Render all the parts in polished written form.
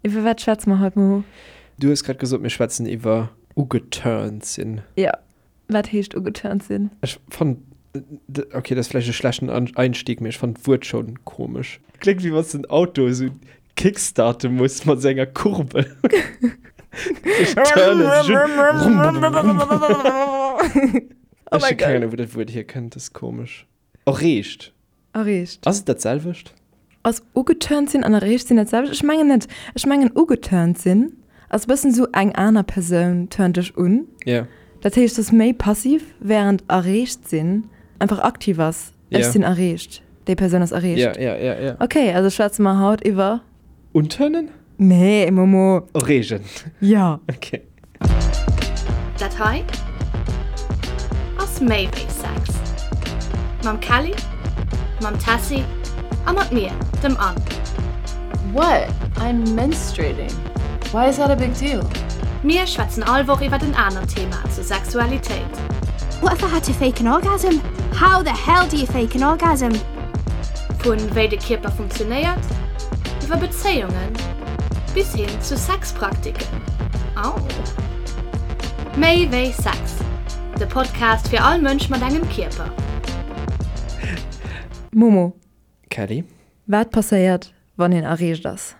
Iwwer wat schwätze mer haut, Momo? Du hues grad gesot, mir schwätzen iwwer ugeturnt sinn. Jo. Wat heescht ugeturnt sinn? Ech fannen, okay, dat ass vläicht e schlechten Einstieg, mee ech fannen d'Wuert schonn komesch. Kléngt wéi wann s de en Auto esou kickstarte muss mat esou enger Kurbel. Sech turnen, sech un. Oh Ech mäi hu keng Gott. Ahnung, wou dat Wuert hierkënnt, dat ass komesch. Erreegt. Erreegt. Ass et dat selwecht? Ass ugeturnt sinn an erreegt sinn dat selwecht? Ech mengen net. Ech mengen ugeturnt sinn ass e bëssen esou eng aner Persoun turnt dech un. Ja. Dat heescht, et ass méi passiv, wärend erreegt sinn einfach aktiv ass. Ja. Ech sinn erreegt, déi Persoun ass erreegt. Ja, ja, ja, ja. Okay, also schwätze mer haut iwwer. Unturnen? Nee, Momo. Erreegen. Ja. Okay. Dat hei ass méi wéi Sex. Mam Kelly, mam Tessy a mat mir, dem Anne. What? I'm menstruating. Why is that a big deal? Mir schwätzen all Woch iwwert en anert Thema zur Sexualitéit. What if I had to fake an orgasm? How the hell do you fake an orgasm? Vun wéi de Kierper funktionéiert, iwwer Bezéiungen bis hin zu Sexpraktiken. Au! Méi wéi Sex, de Podcast fir all Mënsch mat engem Kierper. Momo. Kelly. Wat passéiert, wann een erreegt ass?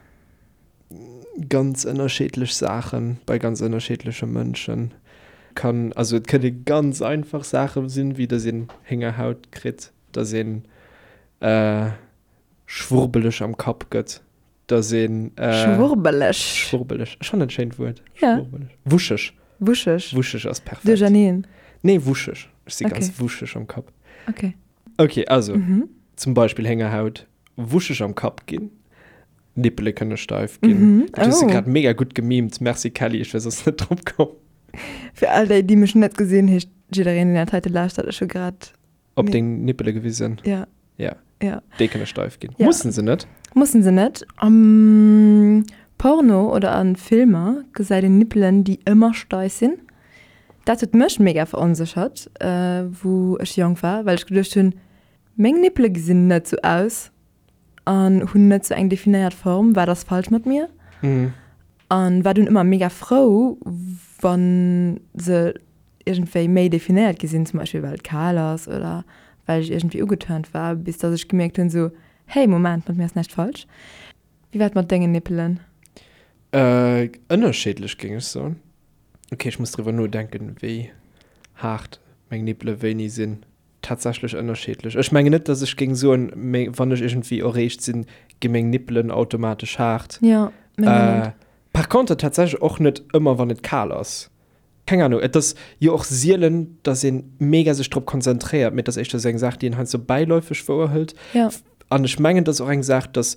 Ganz ënnerscheedlech Saachen bei ganz ënnerscheedleche Mënschen. Kann, also et kënne ganz einfach Saache sinn, wéi dass een Héngerhaut kritt, dass een schwurbeleg am Kapp gëtt, dass een. Schwurbeleg. Schwurbeleg. Ech fannen et schéint Wuert. Ja. Schwurbeleg. Wuscheg. Wuscheg. Wuscheg ass perfekt. Duercherneen. Nee, wuscheg. Ech si Okay. ganz wuscheg am Kapp. Okay. Okay, also Mhm. zum Beispill Héngerhaut, wuscheg am Kapp ginn, Nippele kënne steif ginn. Mhm. Dat hues du Oh. grad mega gutt gemimt. Merci Kelly, ech wär soss net drop komm. Fir all déi, déi mech net gesinn, heescht jiddereen, deen dat heite lauschtert, ech hu grad Op Nee. deng Nippele gewisen. Ja. Ja. Ja. Déi kënne steif ginn. Ja. Mussen se net. Mussen se net. Am Porno oder a Filmer gesäit een Nippelen, déi ëmmer steif sinn. Dat huet mech mega veronséchert, wou ech jonk war, well ech geduecht hunn, meng Nippele gesinn net sou aus an hunn net sou eng definéiert Form, wat ass falsch mat mir? An war dunn ëmmer mega frou, wann se iergendwéi méi definéiert gi sinn, zum Beispill well et kal ass oder well ech iergendwéi ugeturnt war, bis dass ech gemierkt hunn sou, hey Moment, mat mir ass näischt falsch. Wéi war et mat dengen Nippelen? Ënnerscheedlech géing ech soen. Ok, ech muss driwwer nodenken, wéi haart meng Nippele wéini sinn. Tatsächlech ënnerscheedlech. Ech mengen net, dass ech géing soen, wann ech iergendwéi erreegt sinn, gi meng Nippelen automatesch haart. Jo, meng och net. Par contre tatsächlech och net ëmmer, wann et kal ass. Keng Ahnung, et ass jo och sielen, dass ee mega sech drop konzentréiert, mee et ass éischter esou eng Saach, déi een heiansdo bäiläufeg wouerhëlt. Jo. An ech mengen, et ass och eng Saach, dass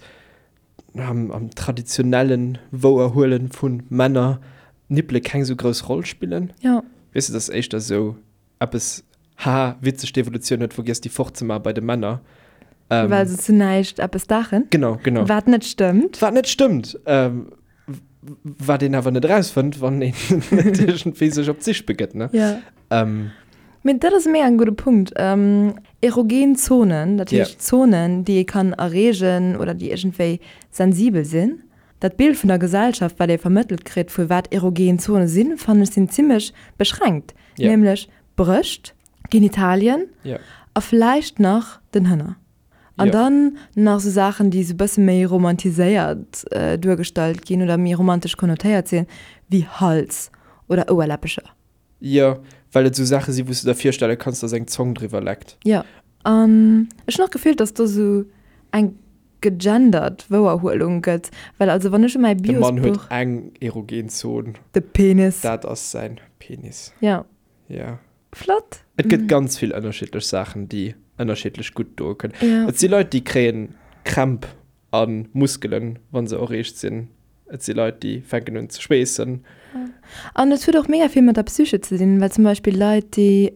am, am traditionellen Wouerhuelen vu Männer Nippele keng esou grouss Roll spillen. Jo. Weess de, et ass éischter esou eppes, haha, witzeg, d'Evolutioun huet vergiess, déi fortzemaache bei de Männer. Ähm, Well se zu näischt eppes daachen. Genau, genau. Wat net stëmmt. Wat net stëmmt. Ähm, wat een awer net erausfënnt, wann een net iergendwéi sech op d'Sich begëtt, ne? Ja. Ähm. Mee dat ass mega en gudde Punkt. Ähm, erogen Zonen, dat heescht Zonen, déi ee kann erreegen oder déi iergendwéi sensibel sinn. Dat Bild vun der Gesellschaft, wat ee vermëttelt kritt, vu wat erogen Zone sinn, fannen ech sinn zimmlech beschränkt. Ja. Nämlech Brëscht, Genitalien Ja. a vläicht nach den Hënner. An Ja. dann nach sou Saachen, déi sou bësse méi romantiséiert duergestallt ginn oder méi romantesch konnotéiert sinn, wéi Hals oder Ouerläppecher. Jo, well et sou Saache sinn, wou s du der virstelle kanns, dass eng Zong driwwer leckt. Jo. An ech hunn och d'Gefill, dass do sou eng gegendert Wouerhuelung gëtt, well also wann ech u mäi De Mann huet Biosbuch. eng erogen Zon. De Penis. Dat ass säin Penis. Jo. Jo. Flott. Et gëtt ganz vill ënnerschiddlech Saachen, déi ënnerschiddlech gutt doe kënnen. Jo. Et si Leit, déi kréien Krämp a Muskelen, wa se erreegt sinn. Et si Leit, déi fänken un ze schweessen. An et huet och mega vill mat der Psyche ze dinn, well zum Beispill Leit, déi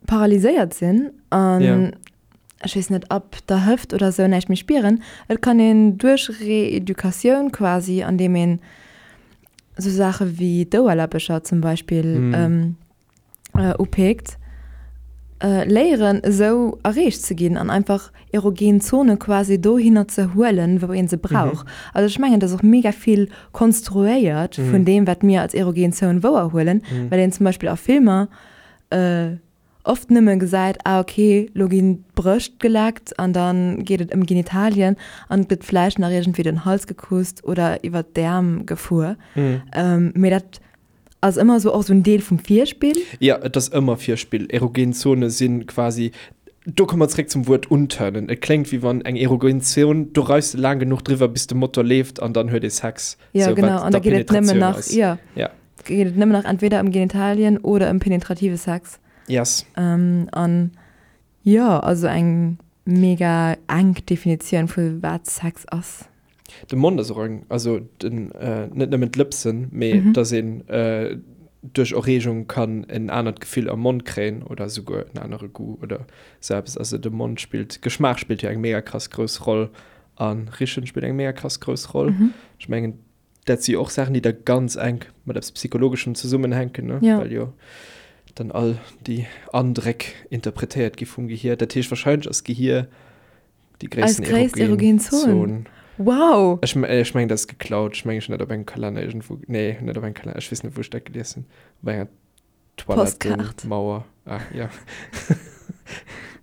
paralyséiert sinn an ech weess net, ab der Hëft oder esou näischt méi spieren, et kann een duerch Reeducatioun quasi, andeem een esou Saache wéi d'Ouerläppecher zum Beispill upeekt. Léieren esou erreecht ze ginn an einfach erogen Zone quasi dohinner ze huelen, wou ee se brauch. Also ech mengen, dass och mega vill konstruéiert vun deem, wat mir als erogen Zone wouerhuelen, well een zum Beispill a Filmer oft nëmme gesäit, ah ok, lo ginn d'Brëscht geleckt an da geet et ëm Genitalien an et gëtt vläicht nach iergendwéi den Hals gekusst oder iwwer d'Äerm gefuer. Mee dat ass ëmmer esou och esou en Deel vum Virspill. Jo, et ass ëmmer Virspill. Erogen Zone si quasi, do komme mer zeréck zum Wuert unturnen. Et kléngt wéi wann eng erogen Zon, do reifs de laang genuch driwwer bis de Motor leeft an dann huet ee Sex. Jo, genau, an da geet et nëmmen nach, jo, geet et nëmmen nach entweder ëm Genitalien oder ëm penetrative Sex. Yes. An jo, also eng mega enk Definitioun vu wat Sex ass. De Mond ass och eng, also den, net nëmmen d'Lëpsen, mee dass een duerch Erreegung kann en anert Gefill am Mond kréien oder esouguer en anere Goût oder sou eppes. Also de Mond spillt, Geschmaach spillt jo eng mega krass grouss Roll a Richen spillt eng mega krass grouss Roll. Ech mengen, dat si jo och Saachen, déi da ganz enk mat eppes Psychologeschem zesummenhänken, ne? Well jo dann all déi Andréck interpretéiert gi vum Gehier. Dat heescht, wahrscheinlech ass d'Gehier Déi gréissten Eis gréisst erogen Zon. Wow! Ech, ech mengen, dat ass geklaut. Ech mengen, ech hunn dat op engem Kalenner iergendwou. Nee, net op engem Kalenner. Ech weess net, wou ech dat gelies hunn. Op enger Toilettenmauer. Ah, ja.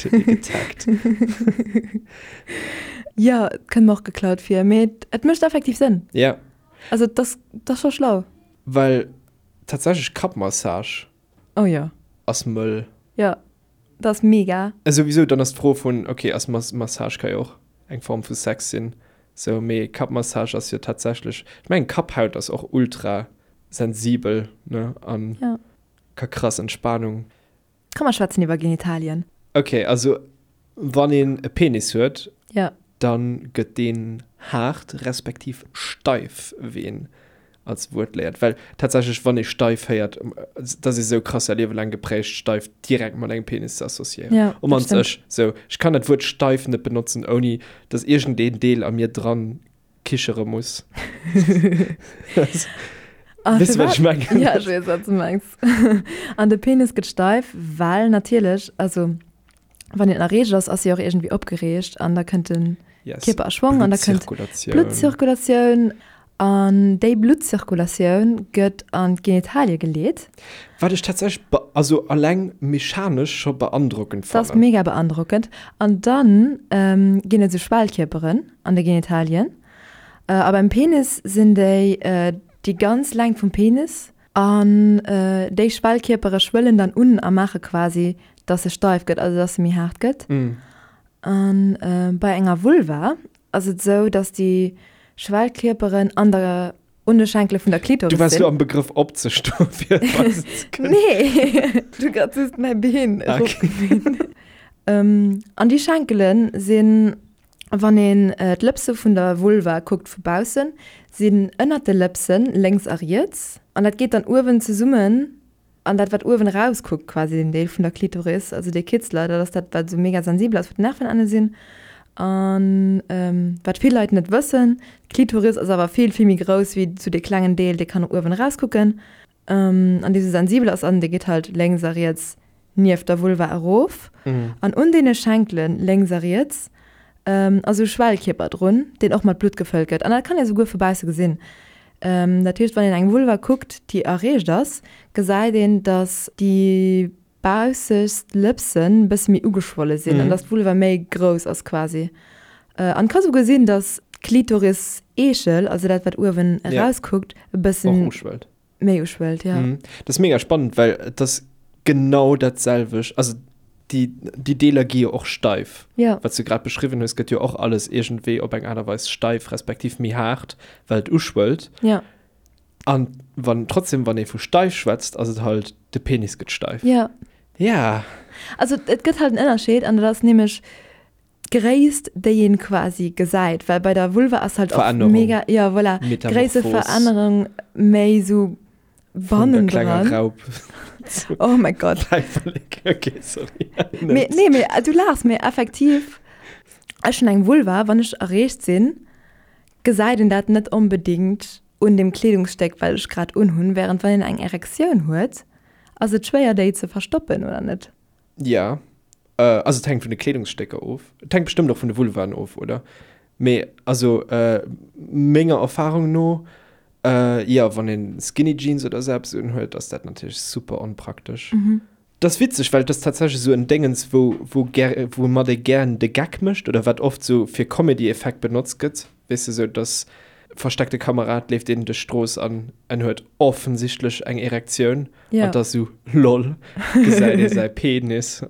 Huet ee getaggt. Jo, et kënnt mer och geklaut vir. Mee et mécht effektiv Sënn. Ja. Also, et ass, et ass scho schlau. Well tatsächlech Kappmassage. Oh jo. Ass mëll. Jo. Dat ass mega. A souwisou, dann ass d'Fro vun, ok, ass Massage ka jo och eng Form vu Sex sinn, sou, mee Kappmassage ass jo tatsächlech, ech mengen Kapphaut ass och ultra sensibel, ne, an ka krass Entspanung. Komm mer schwätzen iwwer Genitalien. Ok, also wann een e Penis huet, dann gëtt deen haart respektiv steif, wéi een als Wuert léiert. Well tatsächlech, wann ee steif héiert, dat ass ee sou krass säi Liewe laang geprägt, steif direkt mat engem Penis ze associéieren. Ja, dat stimmt. Ech, sou, ech kann dat Wuert steif net benotzen, ouni dass iergendeen Deel a mir dran kichere muss. Ah, Weess du, wat ech mengen? Ja, ech weess, wat du mengs. An de Penis gëtt steif, well natierlech, also wann een erreegt ass, ass e och iergendwéi opgereegt an da kënnt de Yes. Kierper a Schwong an da kënnt Bluttzirkulatioun. Bluttzirkulatioun an déi Bluttzirkulatioun gëtt an d'Genitalie geleet. Wat ech tatsächlech be also alleng mechanesch scho beandrockend Dat ass fannen. mega beandrockend. An dann ginn et esou Schwellkierperen an de Genitalien a beim Penis sinn déi déi ganz Längt vum Penis An déi Schwellkierpere schwëllen dann un a maache quasi, dass se steif gëtt, also dass se méi haart gëtt. A bei enger Vulva ass et esou, dass déi Schwellkierperen an der, un de Schenkele vun der Klitoris Du waars sinn. lo am Begrëff opzestoen, fir et weisen ze kënnen. Nee, du grad just mäi Been eropgemeet. An déi Schenkele sinn Wann een d'Lëpse vun der Vulva kuckt vu baussen, sinn ënnert de Lëpsen lénks a riets, an dat geet dann uewen zesummen, an dat wat uewen eraus kuckt, quasi den Deel vun der Klitoris, also dee Kitzler, dat ass dat wat esou mega sensibel ass, wou d'Nervenenne sinn. An wat vill Leit net wëssen, d'Klitoris ass awer vill vill méi grouss wéi esou dee klengen Deel, dee kann uewen eraus kucken. An dee sou sensibel ass an dee geet halt lénks a riets nieft der Vulva erof. An un deene Schenkelen lénks a riets ass esou e Schwellkierper drun, deen och mat Blutt gefëllt gëtt. An dat kann ee souguer vu bausse gesinn. Dat heescht, wann een eng Vulva kuckt, déi erreegt ass, gesäit een, datt déi baussegst Lëpsen bësse méi ugeschwolle sinn an datt d'Vulva méi grouss ass quasi. An et ka souguer sinn, datt d'Klitoris-Eechel, also dat wat uewen erauskuckt, e bëssen méi uschwëllt, jo. Dat ass mega spannend, well et ass genau dat selwecht. Also déi, déi Deeler gi jo och steif. Jo. Wat s du grad beschriwwen hues, gëtt jo och alles iergendwéi op eng Aart a Weis steif, respektiv méi haart, well et uschwëllt. Jo. An wann, trotzdem, wann ee vu steif schwätzt, ass et halt, de Penis gëtt steif. Ja. Ja. Also et gëtt halt en Ënnerscheed an dat ass nämlech d'Gréisst, déi een quasi gesäit, well bei der Vulva ass halt och Verännerung. mega, ja voilà, Metamorphos. Gréisseverännerung méi sou Vun der klenger bannendran. Raup Oh mäi Gott. Päiperlek. Okay, sorry. Mee, nee, mee du laachs, mee effektiv, ech hunn eng Vulva, wann ech erreegt sinn, gesäit een dat net onbedéngt un dem Kleedungsstéck wat ech grad unhunn, während wann een eng Erektioun huet, ass et schwéier déi ze verstoppen, oder net? Ja. Also et hänkt vun de Kleedungsstécker of. Et hänkt bestëmmt och vun de Vulvaen of, oder? Mee also menger Erfahrung no, jo, wann een Skinny Jeans oder esou eppes unhuet, ass dat natierlech super onpraktesch. Et ass witzeg, well et ass tatsächlech esou en Déngens, wou, wou gär, woumat ee gären de Geck mécht oder wat oft esou fir Comedy-Effekt benotzt gëtt, weess de, esou dass versteckte Kamera, et leeft een duerch d'Strooss an en huet offensichtlech eng Erektioun Ja. an et ass esou, lol, gesäit ee säi Penis.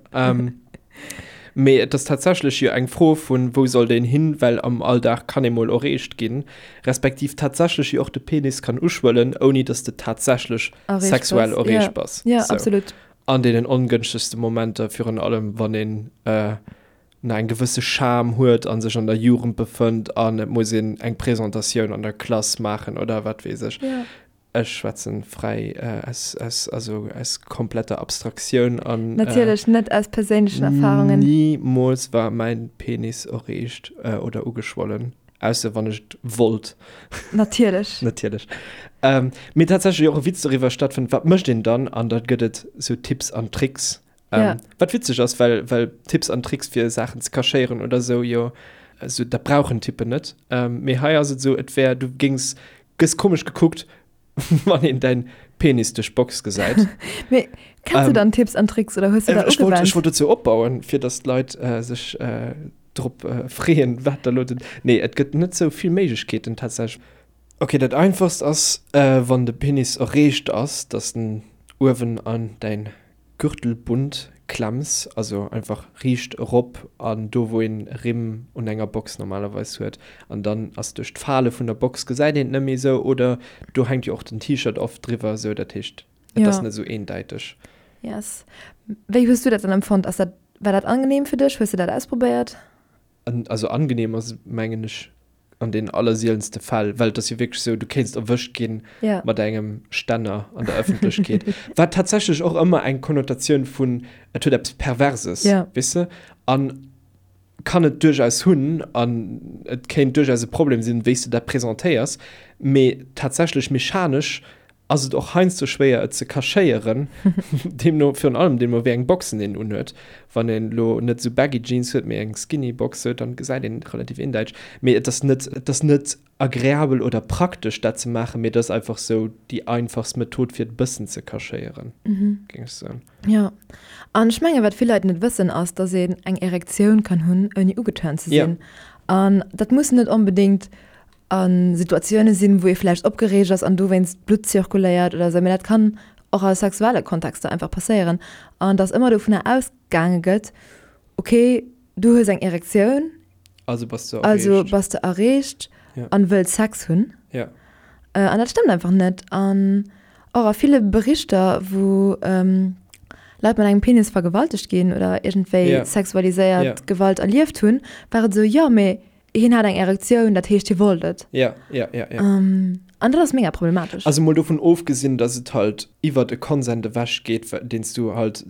Mee et ass tatsächlech jo eng Fro vun, wou soll deen hin, well am Alldag kann ee mol erreecht ginn, respektiv tatsächlech jo och de Penis kann uschwëllen, ouni dass de tatsächlech Erreecht sexuell bass. erreecht Ja. bass. Ja, Sou. absolut. An deenen ongënschtegste Momenter, virun allem wann een nach eng gewësse Scham huet a sech an der Jugend befënnt an et muss een eng Presentatioun an der Klass maachen oder wat weess ech. Ja. Ech schwätzen fräi aus, aus, also aus kompletter Abstraktioun an. Natierlech net aus perséinlechen Erfahrungen. Nimools war mäin Penis erreegt oder ugeschwollen, ausser wann ech et wollt. Natierlech. Natierlech. Mee tatsächlech och e Witz doriwwer stattfënnt, wat mécht een dann? An da gëtt et sou Tipps an Tricks. Ja. Wat witzeg ass, well, well Tipps an Tricks fir Saachen ze cachéieren oder sou jo, also dat brauchen Typen net. Mee hei ass et sou, et wär, du géings Gëss komesch gekuckt, wann een däin Penis duerch d'Box gesäit. Mee kenns du dann Tipps an Tricks oder hues du der Ech wollt, ugewennt? ech wollt dozou opbauen, fir dass d'Leit sech drop freeën, wat da lo den. Nee, et gëtt net sou vill Méiglechkeeten tatsächlech. Ok, dat einfachst ass, wann de Penis erreecht ass, dass en uewen an däin Gürtelbund klemms, also einfach riicht erop an do wou een Rimm un enger Box normalerweis huet an dann ass duerch d'Fale vun der Box gesäit een et net méi esou oder do hänkt jo och den T-Shirt oft driwwer esou, dat heescht et ass Ja. net esou eendeiteg. Yes. Wéi hues du dat dann empfonnt? Ass dat, war dat angenehm fir dech? Hues du dat ausprobéiert? Also angenehm ass et mengen ech An den allersielenste Fäll, well et ass jo wierklech esou, du kéinst erwëscht ginn Ja. mat engem Stänner an der Ëffentlechkeet, wat tatsächlech och ëmmer eng Konnotatioun vun et huet eppes Perverses, Ja. weess de, an kann et duerchaus hunn an et kéint duerchaus e Problem sinn, wéi s de dat presentéiers, mee tatsächlech mechanesch ass et och heiansdo schwéier et ze cachéieren, deemno virun allem deemno wéi eng Boxen een unhuet. Wann een elo net esou baggy Jeans huet, mee eng skinny Box huet, dann gesäit een et relativ eendeiteg. Mee et ass net, et ass net agreabel oder praktesch dat ze maachen, mee et ass einfach esou déi einfachst Method fir et e bëssen ze cachéieren, géing ech soen. Jo, an ech mengen wat vill Leit net wëssen ass, dass een eng Erektioun kann hunn ouni ugeturnt ze sinn. An dat muss net onbedéngt a Situatioune sinn, wou ee vläicht opgereegt ass an dowéinst d'Blutt zirkuléiert oder esou, mee dat kann och a sexuelle Kontexter einfach passéieren an dass ëmmer dovunner ausgaange gëtt, okay, du hues eng Erektioun, Also bass de also erreecht. bass de erreecht Ja. an wëlls Sex hunn. Ja. An dat stëmmt einfach net. An och a ville Berichter, wou Leit mat engem Penis vergewaltegt ginn oder iergendwéi Ja. sexualiséiert Ja. Gewalt erlieft hunn, war et esou, jo, mee Hien hat eng Erektioun, dat heescht hie wollt et. Ja, ja, ja, ja. An dat ass mega problematesch. Also mol dovun ofgesinn, dass et halt iwwert e Consent ewech geet, deen s du halt,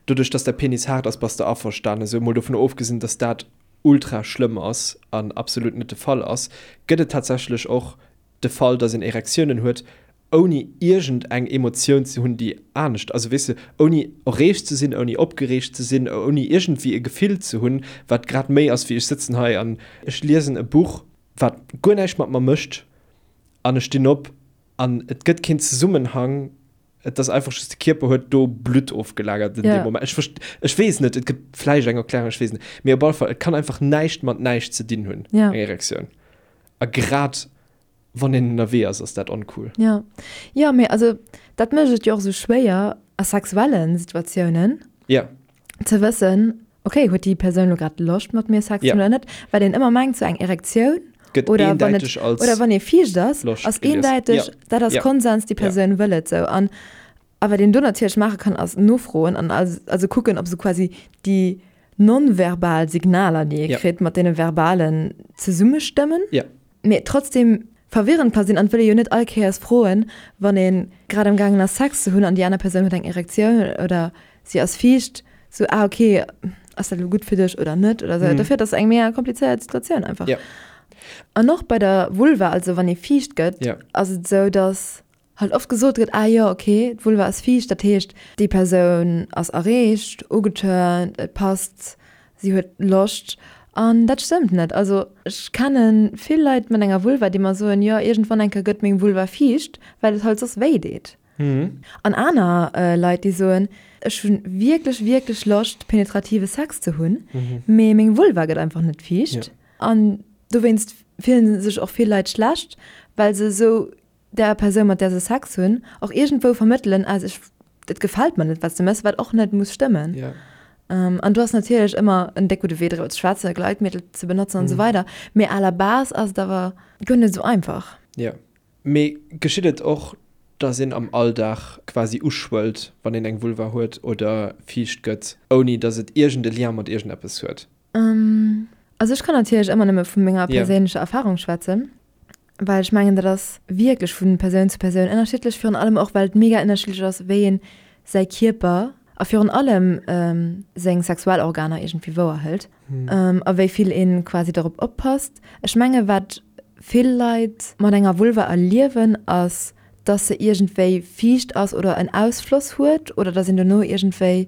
doduerch dass däi Penis haart ass, bass de averstanen. Esou mol dovun ofgesinn, dass dat ultra schlëmm ass an absolut net de Fall ass, gëtt et tatsächlech och de Fall, dass een Erektiounen huet, ouni iergend eng Emotioun ze hunn, déi anescht, also weess de, ouni erreegt ze sinn, ouni opgereegt ze sinn, ouni iergendwéi e Gefill ze hunn, wat grad méi ass wéi ech sëtzen hei an ech liesen e Buch, wat guer näischt mat mer mécht an ech stinn op an et gëtt keen Zesummenhang, et ass einfach just de Kierper huet do Blutt ofgelagert in deem Moment. Ech verst, ech weess net, et gëtt vläicht eng Erklärung, ech weess net, mee op alle Fall, et kann einfach näischt mat näischt ze dinn hunn, eng Erektioun. A grad Wann een ënnerwee ass, ass dat oncool. Ja. Jo, mee also dat mécht et jo och esou schwéier a sexuelle Situatiounen. Ja. Ze wëssen, okay, huet déi Persoun elo grad Loscht mat mir Sex ze hunn oder net? Well een ëmmer mengt, sou eng Erektioun Gëtt oder wann et eendäiteg als oder wann ee fiicht ass, Loscht ass gelies. eendäiteg, Ja. dat ass Ja. Konsens, déi Ja. Persoun wëll et sou. An a wat een do natierlech maache kann, ass nofroen an also kucken, ob sou quasi déi non-verbal Signaler, déi ee Ja. kritt, mat deene verbalen zesummestëmmen. Ja. Mee trotzdem verwirrend ka sinn an et wëll ee jo net all Kéiers froen, wann ee grad am gaangen ass Sex ze hunn an déi aner Persoun huet eng Erektioun oder si ass fiicht, sou ah ok, ass dat elo gutt fir dech oder net oder sou. Dofir et ass eng mega komplizéiert Situatioun einfach. Ja. An och bei der Vulva, also wann ee fiicht gëtt, Ja. ass et sou, dass. Halt oft gesot gëtt, ah jo, okay, d'Vulva ass fiicht, dat heescht, déi Persoun ass erreegt, ugeturnt, et passt, si huet Loscht. An dat stëmmt net. Also ech kenne vill Leit mat enger Vulva, déi mer soen, jo, iergendwann eng Kéier gëtt meng Vulva fiicht, well et halt soss wéi deet. An aner Leit, déi soen, ech hu wierklech, wierklech Loscht, penetrative Sex ze hunn, mee meng Vulva gëtt einfach net fiicht. An dowéinst fillen sech och vill Leit schlecht, well se esou der Persoun, mat där se Sex hunn, och iergendwou vermëttelen, also ech, et gefält mer net, wat s de méchs, wat och net muss stëmmen. Ja. An do ass natierlech ëmmer en déck gudde Wee driwwer ze schwätzen, Gleitmittel ze benotzen an esou weider, mee à la base ass et awer guer net esou einfach. Ja. Mee geschitt et och, dass een am Alldag quasi uschwëllt, wann een eng Vulva huet oder fiicht gëtt, ouni dass et iergend e Lien mat iergendeppes huet? Also ech kann natierlech ëmmer nëmme vu menger perséinlecher Erfarung schwätzen. Well ech mengen, dat ass wierklech vu Persoun zu Persoun ënnerschiddlech, virun allem och, well et mega ënnerschiddlech ass, wéi een säi Kierper a virun allem seng Sexualorganer iergendwéi wouerhëlt a wéi vill ee quasi dorop oppasst. Ech menge wat vill Leit mat enger Vulva erliewen, ass, dass se iergendwéi fiicht ass oder en Ausfloss huet oder dass een dono iergendwéi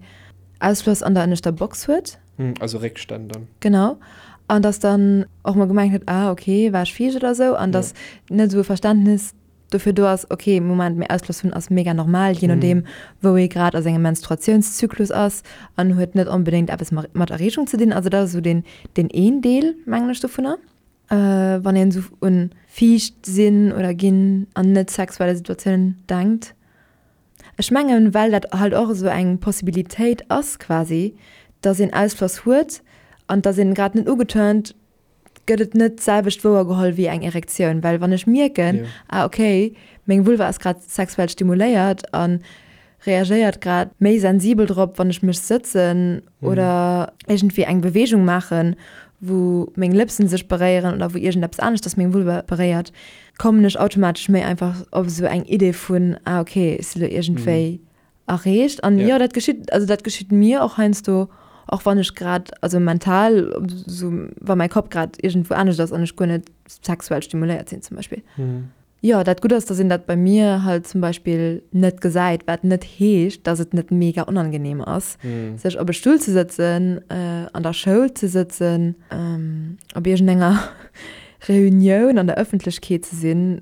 Ausfloss an der ënneschter Box huet. Also Réckstänn dann. Genau. An dass dann och mol gemengt gëtt, ah okay, war ech fiicht oder esou. An dass net esou e Verständnis dofir do ass, okay, Moment, mee Ausfloss hunn ass mega normal, jee nodeem, wou ee grad a sengem Menstruatiounszyklus ass an huet net onbedéngt eppes mat Erreegung ze dinn. Also dat ass esou deen, deen een Deel, mengen ech, dovunner. Wann een esou un fiicht sinn oder ginn an net sexuelle Situatiounen denkt. Ech mengen, well dat halt och esou eng Possibilitéit ass quasi, dass een Ausfloss huet an dass een grad net ugeturnt, gëtt et net d'selwecht wouer geholl wéi eng Erektioun. Well wann ech mierken, ah okay, meng Vulva ass grad sexuell stimuléiert a reagéiert grad méi sensibel drop, wann ech mech sëtzen oder iergendwéi eng Beweegung maachen, wou meng Lëpsen sech beréieren oder wou iergendeppes aneschters meng Vulva beréiert, kommen ech automatesch méi einfach op esou eng Idee vun, ah okay, ech si lo iergendwéi erreegt. An jo, dat geschitt, also dat geschitt mir och heiansdo, och wann ech grad, also mental, esou wa mäi Kapp grad iergendwou anescht ass an ech guer net sexuell stimuléiert sinn zum Beispill. Jo, dat Gutt ass, dass een dat bei mir halt zum Beispill net gesäit, wat net heescht, dass et net mega onangenehm ass, sech op e Stull ze sëtzen, an der Schoul ze sëtzen, op iergendenger Reunioun an der Ëffentlechkeet ze sinn.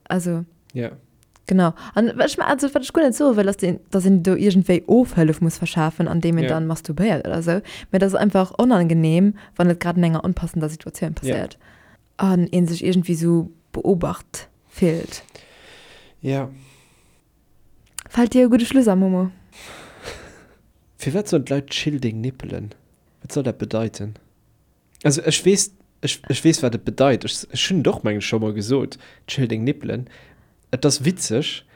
Also. Ja. Genau. An ech, also wat ech guer net soe wëll, ass, dass een do iergendwéi Ofhëllef muss verschafen, andeem een dann masturbéiert oder esou, mä et ass einfach onangenehm, wann et grad an enger onpassender Situatioun passéiert. An een sech iergendwéi sou beobacht fillt. Ja. Fällt dir e gudde Schluss an, Momo? Firwat soen d'Leit chill deng Nippelen? Wat soll dat bedeiten? Also ech weess, ech, ech weess wat et bedeit. Ech, ech hunn et och mengen ech scho mol gesot, chill deng Nippelen. Et ass witzeg,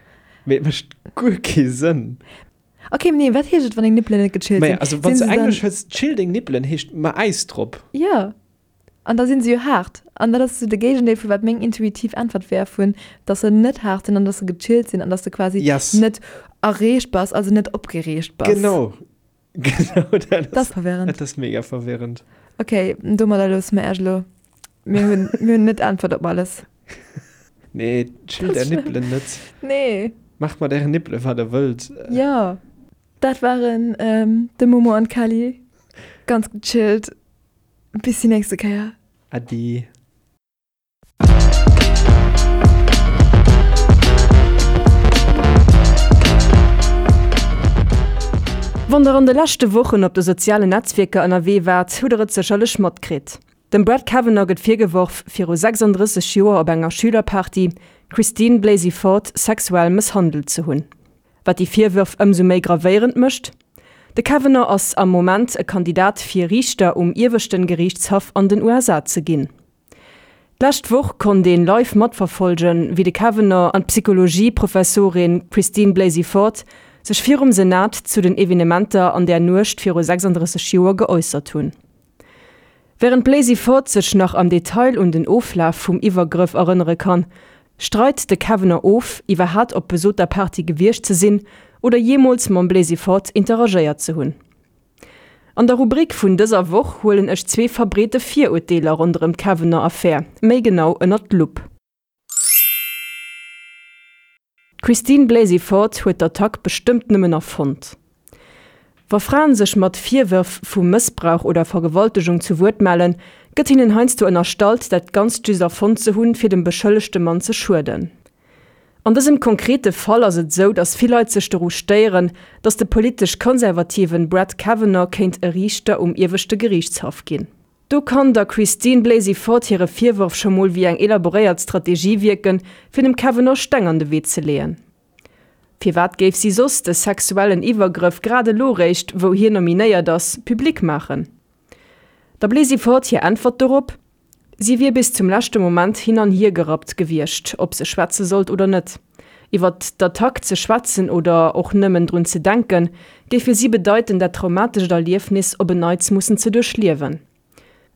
mee et mécht guer kee Sënn. Ok, nee, wat heescht et wann deng Nippelen net gechillt sinn? Maja, also wann s de Englesch hues, chill deng Nippelen heescht ma Äis drop. Jo. An da sinn se jo haart. An dat ass esou de Géigendeel vu wat meng intuitiv Äntwert wär, vun dass se net haart sinn an dass se gechillt sinn an dass de quasi Yes. net erreegt bass, also net opgereegt bass. Genau. Genau dat Dat ass verwirrend. Dat ass mega verwirrend. Ok, domadder loosse mer Iech elo. Mir hunn, mir hunn net d'Äntwert op alles. Nee, chillt är Nippelen net. Nee. Maacht mat ären Nippele wat der wëllt. Jo. Dat waren de Momo an d'Kelly. Ganz gechillt. Bis déi nächste Kéier. Äddi. Wann der an de leschte Wochen op de sozialen Netzwierker ënnerwee waart, hutt der et sécherlech matkritt. Dem Brett Kavanaugh gëtt virgeworf, viru 36 Joer op enger Schülerparty d'Christine Blasey Ford sexuell mësshandelt ze hunn. Wat déi Virwërf ëmsou méi gravéierend mécht, De Kavanaugh ass am Moment e Kandidat fir Riichter um ieweschten Geriichtshaff an den USA ze ginn. D'lescht Woch konnt een live matverfollgen, wéi de Kavanaugh an d'Psychologie-Professorin Christine Blasey Ford sech virum Senat zu den Evenementer an där Nuecht viru 36 Joer geäussert hunn. Wärend d'Blasey Ford sech nach am Detail un den Oflaf vum Iwwergrëff erënnere kann, streit de Kavanaugh of, iwwerhat op besoter Party gewiescht ze sinn oder jeemools mam Blasey Ford interagéiert ze hunn. An der Rubrik vun dëser Woch huelen ech zwee verbreete Virurteeler ronderëm d'Kavanaugh-Affär méi genau ënnert d'Lupp. D'Christine Blasey Ford huet d'Attack bestëmmt nëmmen erfonnt. Wa Fraen sech mat Virwërf vu Mëssbrauch oder Vergewaltegung zu Wuert mellen, gëtt hinnen heiansdo ënnerstallt, dat Ganzt just erfonnt ze hunn, fir dem beschëllegte Mann ze schueden. An dësem konkrete Fall ass et sou, datt vill Leit sech doru stéieren, datt de politesch konservativen Brett Kavanaugh kéint e Riichter um Ieweschte Geriichtshaff ginn. Do kann der Christine Blasey Ford hire Virworf scho mol wéi eng elaboréiert Strategie wierken, fir dem Kavanaugh Steng an de Wee ze leeën. Firwat géif si soss de sexuellen Iwwergrëff grad elo réischt, wou hien nominéiert ass, public maachen? Der Blasey Ford hir Äntwert dorop, Si wier bis zum leschte Moment hin an hier gerappt gewiescht, ob se schwätze sollt oder net. Iwwer d'Attack ze schwätzen oder och nëmmen drun ze denken, géif fir si bedeiten, dat traumatescht Erliefnis op en Neits mussen ze duerchliewen.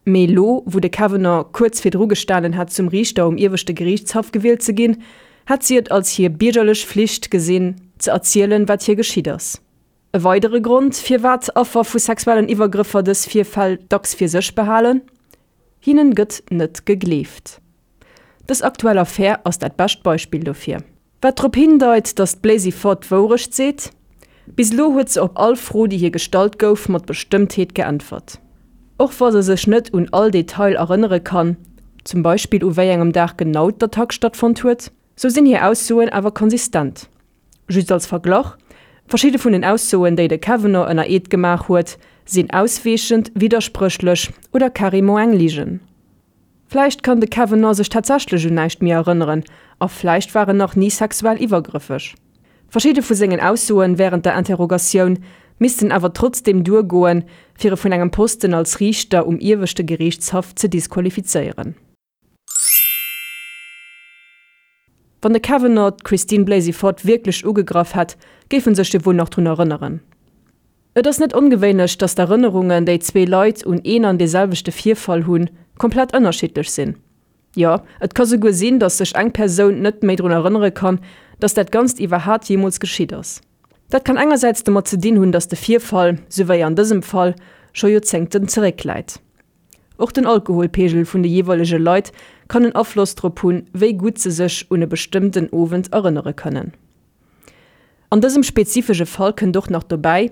Mee elo, wou de Kavanaugh kuerz virdru gestanen hätt, zum Riichter um Ieweschte Geriichtshaff gewielt ze ginn, hätt si et als hir biergerlech Flicht gesinn, ze erzielen, wat hir geschitt ass. E weidere Grond, firwat Affer vu sexuellen Iwwergrëffer dës Virfäll dacks fir sech behalen, Hinnen gëtt net gegleeft. Dës aktuell Affär ass dat bescht Beispill dofir. Wat drop hindeit, datt d'Blaisy Ford d'Wourecht seet, Bis elo huet se op all Fro, déi hir gestallt gouf, mat Bestëmmtheet geäntwert. Och wa se sech net un all Detail erënnere kann, zum Beispill u wéi engem Dag genau d'Attack stattfonnt huet, sou sinn hir Aussoen awer konsistent. Just als Verglach, Verschidde vun den Aussoen, déi de Kavanaugh ënner Eed gemaach huet, sinn ausweechend, widderspréchlech oder carrément eng Ligen. Vläicht kann de Kavanaugh sech tatsächlech un näischt méi erënneren a vläicht war en nach ni sexuell iwwergrëffeg. Verschidde vu sengen Aussoen wärend der Interrogatioun missten awer trotzdeem duergoen, fir e vun engem Posten als Riichter um Ieweschte Geriichtshaff ze disqualifizéieren. Wann de Kavanaugh d'Christine Blasey Ford wierklech ugegraff hätt, géif en sech jo wuel nach drun erënneren. Et ass net ongewéinlech, datt d'Erënnerungen, déi zwee Leit un een an dee selwechte Virfall hunn, komplett ënnerschiddlech sinn. Jo, et ka souguer sinn, datt sech eng Persoun net méi drun erënnere kann, datt dat Ganzt iwwerhaat jeemools geschitt ass. Dat kann engersäits domat ze dinn hunn, datt de Virfall, sou wéi an dësem Fall, scho Joerzéngten zeréckläit. Och den Alkoholpeegel vun de jeeweilege Leit kann en Afloss drop hunn, wéi gutt se sech un e bestëmmten Owend erënnere kënnen. An dësem spezifesche Fall kënnt och nach dobäi,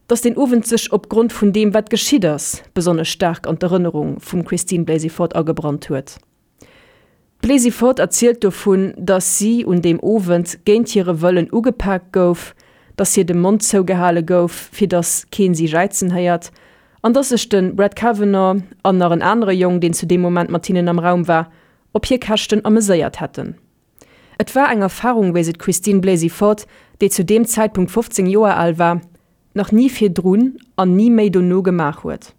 dass deen Owend sech opgrond vun deem, wat geschitt ass, besonnesch staark an d'Erënnerung vum Christine Blasey Ford agebrannt huet. D'Blasey Ford erzielt dovun, dass si un deem Owend géint hire Wëllen ugepaakt gouf, dass hir de Mond zougehale gouf, fir dass keen si jäizen héiert, an dass sech de Brett Kavanaugh an nach en anere Jong, deen zu deem Moment mat hinnen am Raum war, op hir Käschten ameséiert hätten. Et war eng Erfarung, wéi se d'Christine Blasey Ford, déi zu deem Zäitpunkt 15 Joer al war, nach ni virdrun an ni méi dono gemaach huet.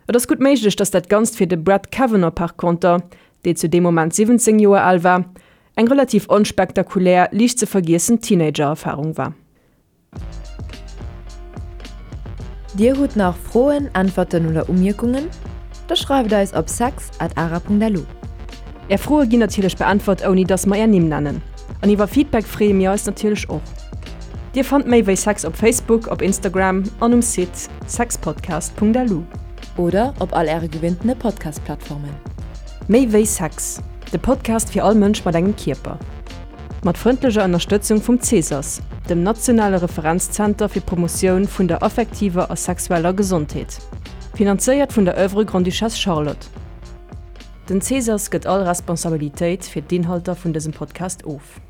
Et ass gutt méiglech, datt dat Ganzt fir de Brett Kavanaugh par conter, dee zu deem Moment 17 Joer al war, eng relativ onspektakulär, liicht ze vergiessen Teenager-Erfarung war. Dir hutt nach Froen, Äntwerten oder Umierkungen? Da schreift eis op sex at ara.lu. Är Froe ginn natierlech beäntwert ouni dass mer är Nimm nennen. An iwwer Feedback freeë mir eis natierlech och. Dir fannt méi wéi Sex op Facebook, op Instagram an um Site sexpodcast.lu. Oder op all äre gewinntene Podcast-Plattformen. Méi wéi Sex, de Podcast fir all Mënsch mat engem Kierper. Mat frëndlecher Ënnerstëtzung vum CSAS, dem nationale Referenzzenter fir d'Promotioun vun der affektiver a sexueller Gesondheet. Finanzéiert vun der Oeuvre Grande-Duchesse Charlotte. Den CSAS gëtt all Responsabilitéit fir d'Inhalter vun dësem Podcast of.